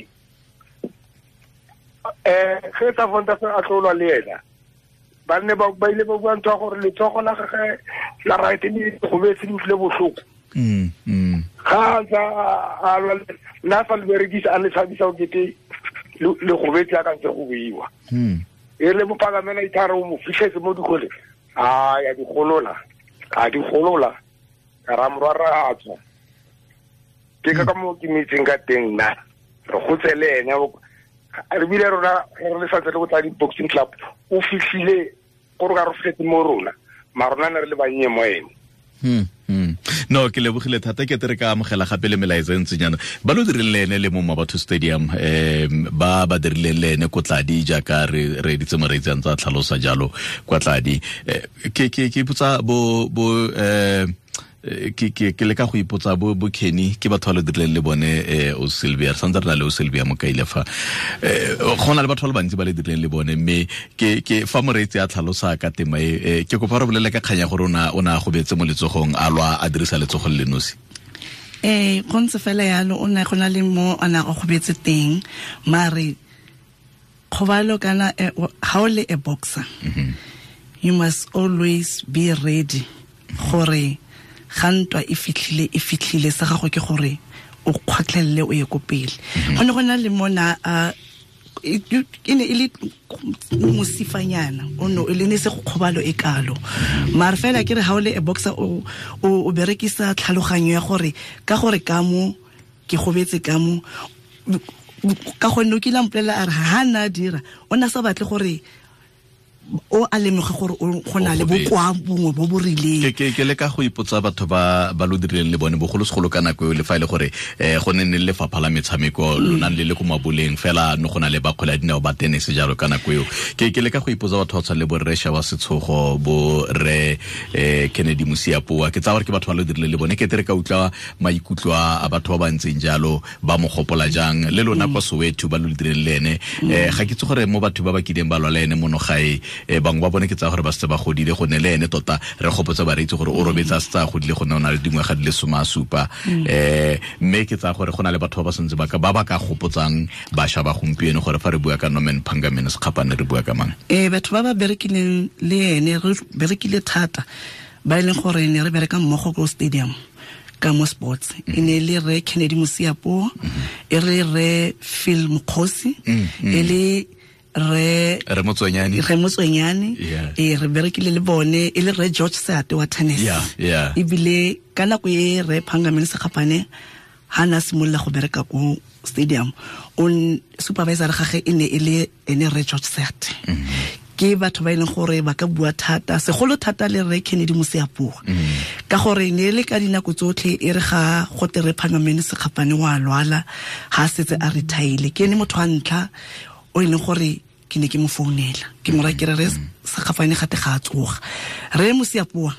Ge Cervantes a tlolwa le ena. Ba ne ba ile ba bua ntho ya gore letsogo la gagwe la right le gobetse le utlwile botlhoko. Ga ntse a lwa nna fa le berekisa a le tshabisa o kete le gobetse a ka ntse go buiwa. E le mopagamela ithare o mo fitlhetse mo dikgole. A ya dikgolola. A dikgolola. Ka ra morwara a tswa. Ke ka mo ke metseng ka teng nna. Re gotse le ene re bile rona re le santse le go tla di-boxing club o fitlhile gore ka re fitlhetse mo rona mara rona ne re le bannye mo ene. No, ke lebogile thata ke tere ka amogela gape le melaetsa e ntsinyana ba lo dirileng le ene le mo Mabatho Stadium ba ba dirileng le ene ko Tladi jaaka re editse moreetsi a ntse a tlhalosa jalo kwa Tladi. Ke ipotsa bo ke leka go ipotsa bo Kenny ke batho ba le dirileng le bone o Sylvia re santse re na le o Sylvia Mokaile fa go na le batho ba le bantsi ba le dirileng le bone mme ke fa moreetsi a tlhalosa ka tema e ke kopa re bolele ka kganya gore o na gobetse mo letsogong a lwa a dirisa letsogo le nosi. Go ntse fela yalo o ne go na le mo a na go gobetse teng mare kgobalo kana ha o le a boxer you must always be ready gore ga ntwa e fitlhile sa gago ke gore o kgotlelele o ye ko pele. Go ne go na le mona e ne e le mosifanyana o no e le ne se go kgobalo e kalo mare fela ke re ha o le a boxer o berekisa tlhaloganyo ya gore ka gore ka mo ke gobetse ka mo ka gonne o kile a mpolelela a re ha na dira o na sa batle gore o a lemoge gore go na le bokoa bongwe bo bo rileng. Ke leka go ipotsa batho ba lo dirileng le bone bogolosegolo ka nako eo le fa e le gore go ne ne le lefapha la metshameko lo nang le le ko maboleng fela no go na le ba kgwele ya dinao ba tennis jalo ka nako eo. Ke leka go ipotsa batho ba tshwana le bo Rre Shawa Setshogo bo Rre Kennedy Mosiapoa ke tsaya gore ke batho ba lo dirileng le bone ke tere ka utlwa maikutlo a batho ba ba ntseng jalo ba mo gopola jang le lona kwa Soweto ba lo dirileng le ene. Ga ke itse gore mo batho ba ba kileng ba lwa le ene mono gae bangwe ba bone ke tsaya gore ba setse ba godile go ne le ene tota re gopotsa bareetsi gore o robetse a setse a godile go ne o na le dingwaga di le 17 mme ke tsaya gore go na le batho ba ba santse ba ba ka gopotsang bašwa ba gompieno gore fa re bua ka Norman Phangamene Sekgapane re bua ka mang. Batho ba ba berekileng le ene re berekile thata ba e leng gore ne re bereka mmogo ko stadium ka mo sports e ne le Rre Kennedy Mosiapoa e re Rre Phil Mokgosi e le Re Motswenyane e re berekile le bone e le Rre George Seate wa tennis. Ebile ka nako e Rre Phangamene Sekgapane ha na simolola go bereka ko stadium on supervisor gagwe e ne e le ene Rre George Seate. Ke batho ba e leng gore ba ka bua thata segolo thata le Rre Kennedy Mosiapoa ka gore ne le ka dinako tsotlhe e re ga go te Rre Phangamene Sekgapane wa lwala ha setse a retire ke ene motho wa ntlha o e leng gore ke ne ke mo founela ke mo ra ke re Sekgapane gate ga a tsoga. Rre Mosiapoa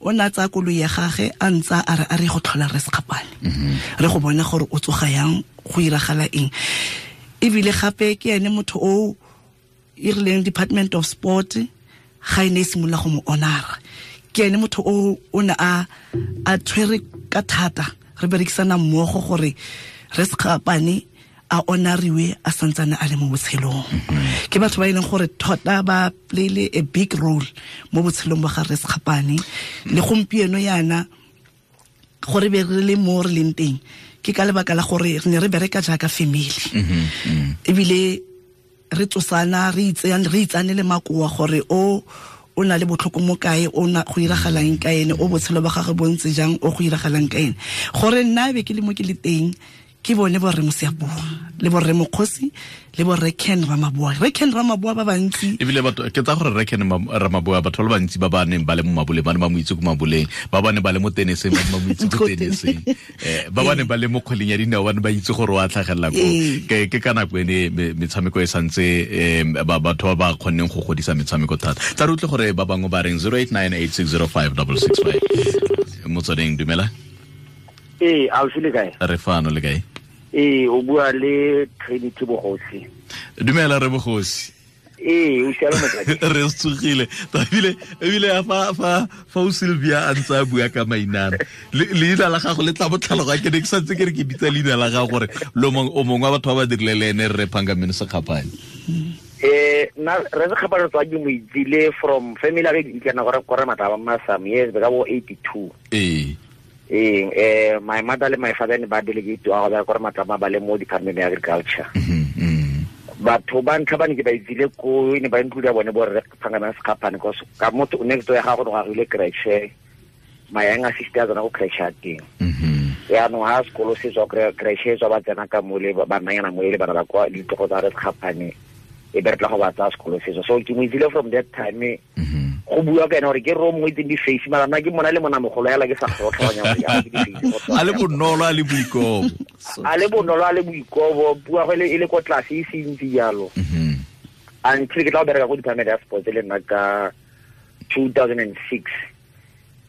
o ne a tsaya koloi ya gagwe a ntsa a re a re go tlhola Rre Sekgapane re go bona gore o tsoga yang go iragala eng. Ebile gape ke ene motho o e rileng Department of Sport ga e ne e simolola go mo honora ke ene motho o ne a tshwere ka thata re berekisana mmogo gore Rre Sekgapane a honoriwe a santsane a le mo botshelong. Ke batho ba e leng gore tota ba playile a big role mo botshelong ba ga Rre Sekgapane le gompieno yana gore be re le mo re leng teng ke ka lebaka la gore re ne re bereka jaaka family ebile re tsosana re itsane le makoa gore o na le botlhoko mo kae o na go iragalang ka ene o botshelo ba gagwe bo ntse jang o go iragalang ka ene gore nna be ke le mo ke le teng ke bone bo Rre Mosiapoa le bo Rre Mokgosi le bo Rre Ken Ramaboa. Rre Ken Ramaboa ba bantsi ebile batho ke tsa gore Rre Ken Ramaboa batho ba bantsi ba ba neng ba le mo maboleng ba ne ba mo itse ko maboleng ba ba ne ba le mo teniseng ba ne ba mo itse ko teniseng ba ba ne ba le mo kgweleng ya dinao ba ne ba itse gore wa tlhagelela ko ke ka nako ene metshameko e santse batho ba ba kgonneng go godisa metshameko thata. Tla re utlwe gore ba bangwe ba reng 0898605665 motsweding. Dumela. Ee, Alfi le kae? Re fano le kae? Ee, o bua le Trinity Bogosi. Dumela re Bogosi. Ee, o siame motsadi. Re tsogile. Ebile fa o Sylvia a ntse a bua ka mainana. Leina la gago le tla botlhaloga ke ne ke santse ke re ke bitsa leina la gago gore lo o mongwe wa batho ba ba dirile le ene Rre Phangameni Sekgapane. Na re Sekgapane tswa ke mo itsile from family ya ke kana gore gore mataba ma some years ka bo 82. Ee. My mother le my father ne ba delegate wa go gore matlama ba le mo department ya agriculture. Batho ba ntlha ba ne ke ba itsile ko ne ba include bone bo Rre Phangameni Sekgapane because ka motho next door ya gago go agile creche, my younger sister tsona go creche ya teng. Yaanong ha sekolo se tswa creche tswa ba tsena ka mole ba nnanyana mo le bana ba kwa ditlogo tsa Rre Sekgapane e be re tla go ba tsaya sekolo se. So ke mo itsile from that time. Go bua ka ene gore ke ro mongwe itseng di-face mara nna ke mona le monamogolo yala ke sa kgotlhanya gore ya ke di-face. A le bonolo a le boikobo. A le bonolo a le boikobo, bua go e le ko tlase e se ntsi jalo. Until ke tla go bereka ko department ya sports le nna ka 2006.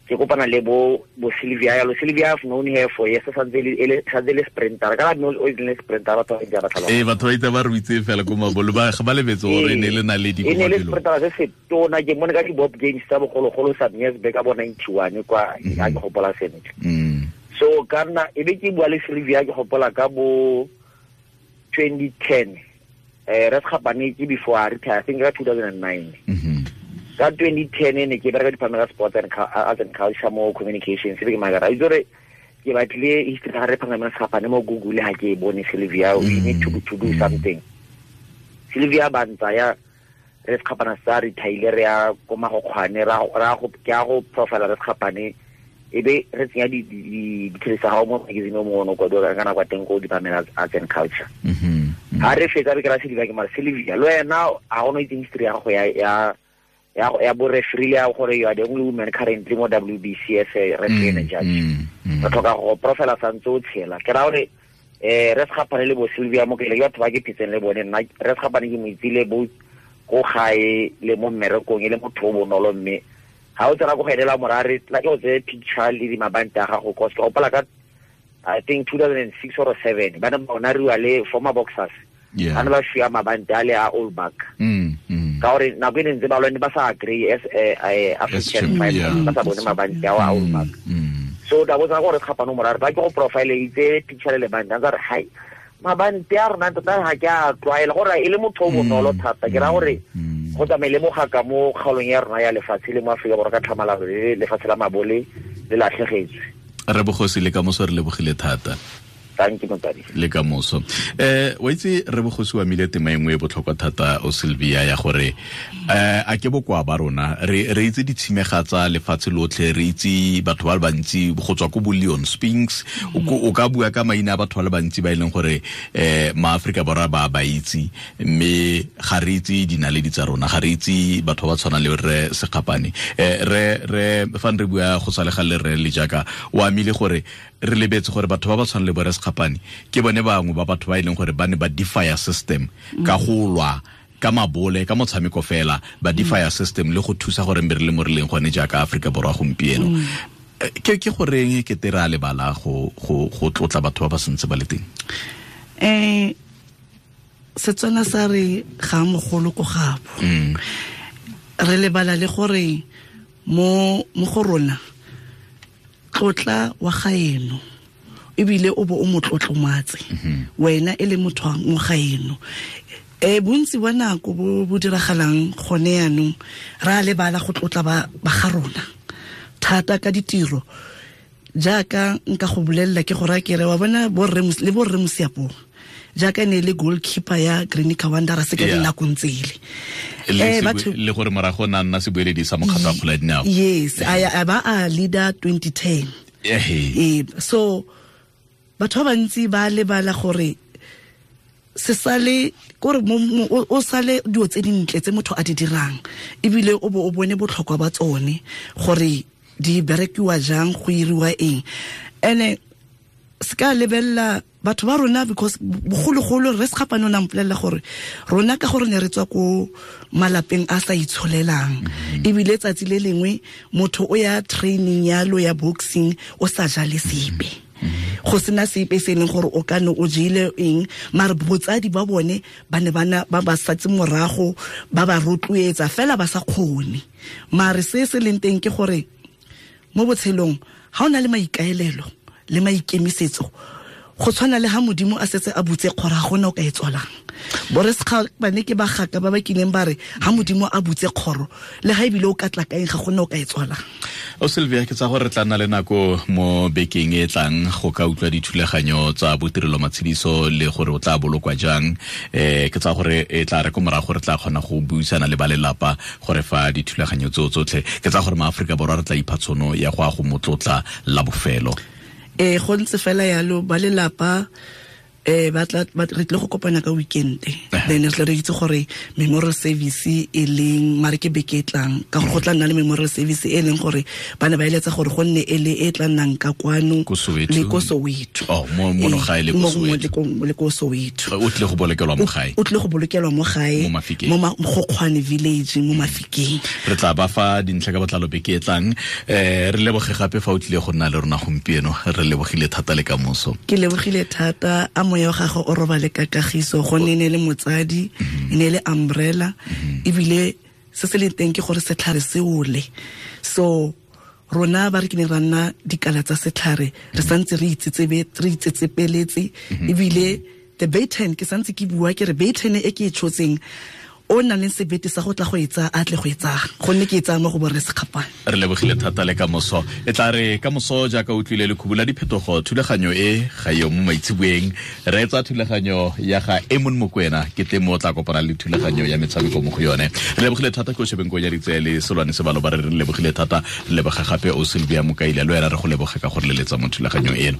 Ke kopana le bo Sylvia yalo. Sylvia, I've known her for years, santse le sprinter. Ka no o ile sprinter batho ba itse ba tlhaloga. Ee, batho ba itse ba re itse fela ko mabolo ba ga ba lebetse gore ne le naledi ko mabelo. E ne le sprinter se se tona ke mone ka di Bob Games tsa bogologolo some years back ka bo 91 kwa a ke gopola sentle. So ka nna e be ke bua le Sylvia ke gopola ka bo 2010. Re Sekgapane ke before I retire, I think ka 2009. Ka 2010 ne ke bereka department ya sports and arts and culture mo communications se ke magara itse gore ke batlile history ga re Phangameni Sekgapane mo Google ha ke bone Sylvia, we need to do something. Sylvia ba ntsaya re Sekgapane sa retire re ya ko Magokgwane ra go ke a go profile re Sekgapane e be re tsenya di tsa gago mo magazine o mongwe kwa dira kana kwa teng ko department of arts and culture. Ha re fetsa re kra Sylvia ke mara Sylvia lo wena a go no itse history ya go ya bo referee ya gore you are the only woman currently mo WBC as a referee and judge. Re tlhoka go profile santse o tshela. Ke ra gore re Sekgapane le bo Sylvia mo ke le batho ba ke phetseng le bone nna re Sekgapane ke mo itsile bo ko gae le mo mmerekong e le motho o bonolo mme ha o tsena go gaelela morare tla ke o tseye picture le di mabante a gago cause ke gopola ka I think 2006 or 7 ba ne ba honoriwa le former boxers. Ba ne ba fiwa mabante a le a all back. Ka gore nako e ne ntse ba lwane ba sa agree as African fight ba sa bone mabante ao a all back. So da botsa gore Sekgapane morare ba ke go profile itse picture le lebante a re hai mabante a rona tota ga ke a tlwaela gore e le motho o bonolo thata ke ra gore go tsamaile mogaka mo kgaolong ya rona ya lefatshe le mo Afrika Borwa ka tlhamalalo le lefatshe la mabole le latlhegetswe. Re Bogosi le ka moso re lebogile thata. Thank you motsadi. Le ka moso. Wa itse re Bogosi wa mile tema engwe e botlhokwa thata o Sylvia ya gore a ke bokoa ba rona re itse ditshimega tsa lefatshe lotlhe re itse batho ba le bantsi go tswa ko bo Leon Spinks o ka bua ka maina a batho ba le bantsi ba e leng gore maAfrika Borwa ba itse mme ga re itse dinaledi tsa rona ga re itse batho ba tshwana le re Sekgapane re fa re bua go sa le ga le re le jaaka o amile gore re lebetse gore batho ba ba tshwana le bo re Sekgapane ke bone bangwe ba batho ba e leng gore ba ne ba defy system ka go lwa ka mabole ka motshameko fela ba defy system le go thusa gore re le mo re leng gone jaaka Afrika Borwa gompieno. Ke goreng ke tera lebala go tlotla batho ba ba sentse ba le teng? Setswana sa re ga mogolo ko gabo. Re lebala le gore mo go rona tlotla wa gaeno ebile o bo o motlotlomatse wena e le motho wa mo gaeno. Bontsi ba nako bo diragalang gone yanong ra lebala go tlotla ba ga rona thata ka ditiro jaaka nka go bolelela ke gore ke re wa bona borre le borre Mosiapong jaaka ne le goalkeeper ya Greenika Wanderers ka dinakong tsele le gore morago na nna sebueledi sa mokgatlo wa kgwele ya dinao. Yes, a ba a leader 2010. So batho ba bantsi ba lebala gore se sale gore o sale dilo tse dintle tse motho a di dirang ebile o bo o bone botlhokwa ba tsone gore di berekiwa jang go iriwa eng. Ene se ka lebella batho ba rona because bogologolo re Sekgapane o na mpolelela gore rona ka gore ne re tswa ko malapeng a sa itsholelang ebile tsatsi le lengwe motho o ya training yalo ya boxing o sa jale sepe. Go sena sepe se leng gore o ka ne o jele eng, mare botsadi ba bone ba ne ba ba satse morago, ba ba rotloetsa fela ba sa kgone. Mare se se leng teng ke gore mo botshelong ga o na le maikaelelo le maikemisetso, go tshwana le ha Modimo a setse a butse kgoro, ga gona o ka e tswalang. Borre Sekgapane ke bagaka ba ba kileng ba re ha Modimo a butse kgoro, le ha ebile o ka tla kaeng, ga gona o ka e tswalang. O Sylvia, ke tsa gore re tla nna le nako mo bekeng e tlang go ka utlwa dithulaganyo tsa botirelo matshediso le gore o tla bolokwa jang. Ke tsa gore e tla re ko morago re tla kgona go buisana le ba lelapa gore fa dithulaganyo tseo tsotlhe. Ke tsa gore maAforika Borwa re tla ipha tshono ya go a go motlotla la bofelo. Go ntse fela yalo, ba lelapa ba tla re tle go kopana ka weekend, then re tla re itse gore memorial service e leng, mare ke beke e tlang, ka gore go tla nna le memorial service e leng gore ba ne ba eletsa gore go nne e le e tla nnang ka kwano le ko Soweto. Oh, mo gae le ko Soweto. Le ko Soweto. O tle go bolokelwa mo gae. O tle go bolokelwa mo gae, mo Mogokgwane village, mo Mafikeng. Re tla ba fa dintlha ka botlalo beke e tlang. Re leboge gape fa o tlile go nna le rona gompieno. Re lebogile thata le kamoso. Ke lebogile thata. A moya wa gagwe o robale ka kagiso, gonne e ne le motsadi, e ne le umbrella, ebile se se leng teng ke gore setlhare se ole. So rona ba re ke ne ra nna dikala tsa setlhare, re santse re itsetsepeletse, ebile the baton ke santse ke bua ke re baton e ke e tshotseng, o nang le sebete sa go tla go etsa, a tle go etsa, gonne ke etsa mo go borre Sekgapane. Re lebogile thata le kamoso. E tla re kamoso jaaka o tlile le khubula diphetogo, thulaganyo e ga yo mo maitseboeng. Re etsa thulaganyo ya ga Emon Mokwena, ke teng mo tla kopana le thulaganyo ya metshameko mo go yone. Re lebogile thata ke o shebeng ko ya ditse le Solwane Sebalo ba re lebogile thata. Re leboga gape o Sylvia Mokaila, le wena re go leboga ka gore leletsa mo thulaganyong eno.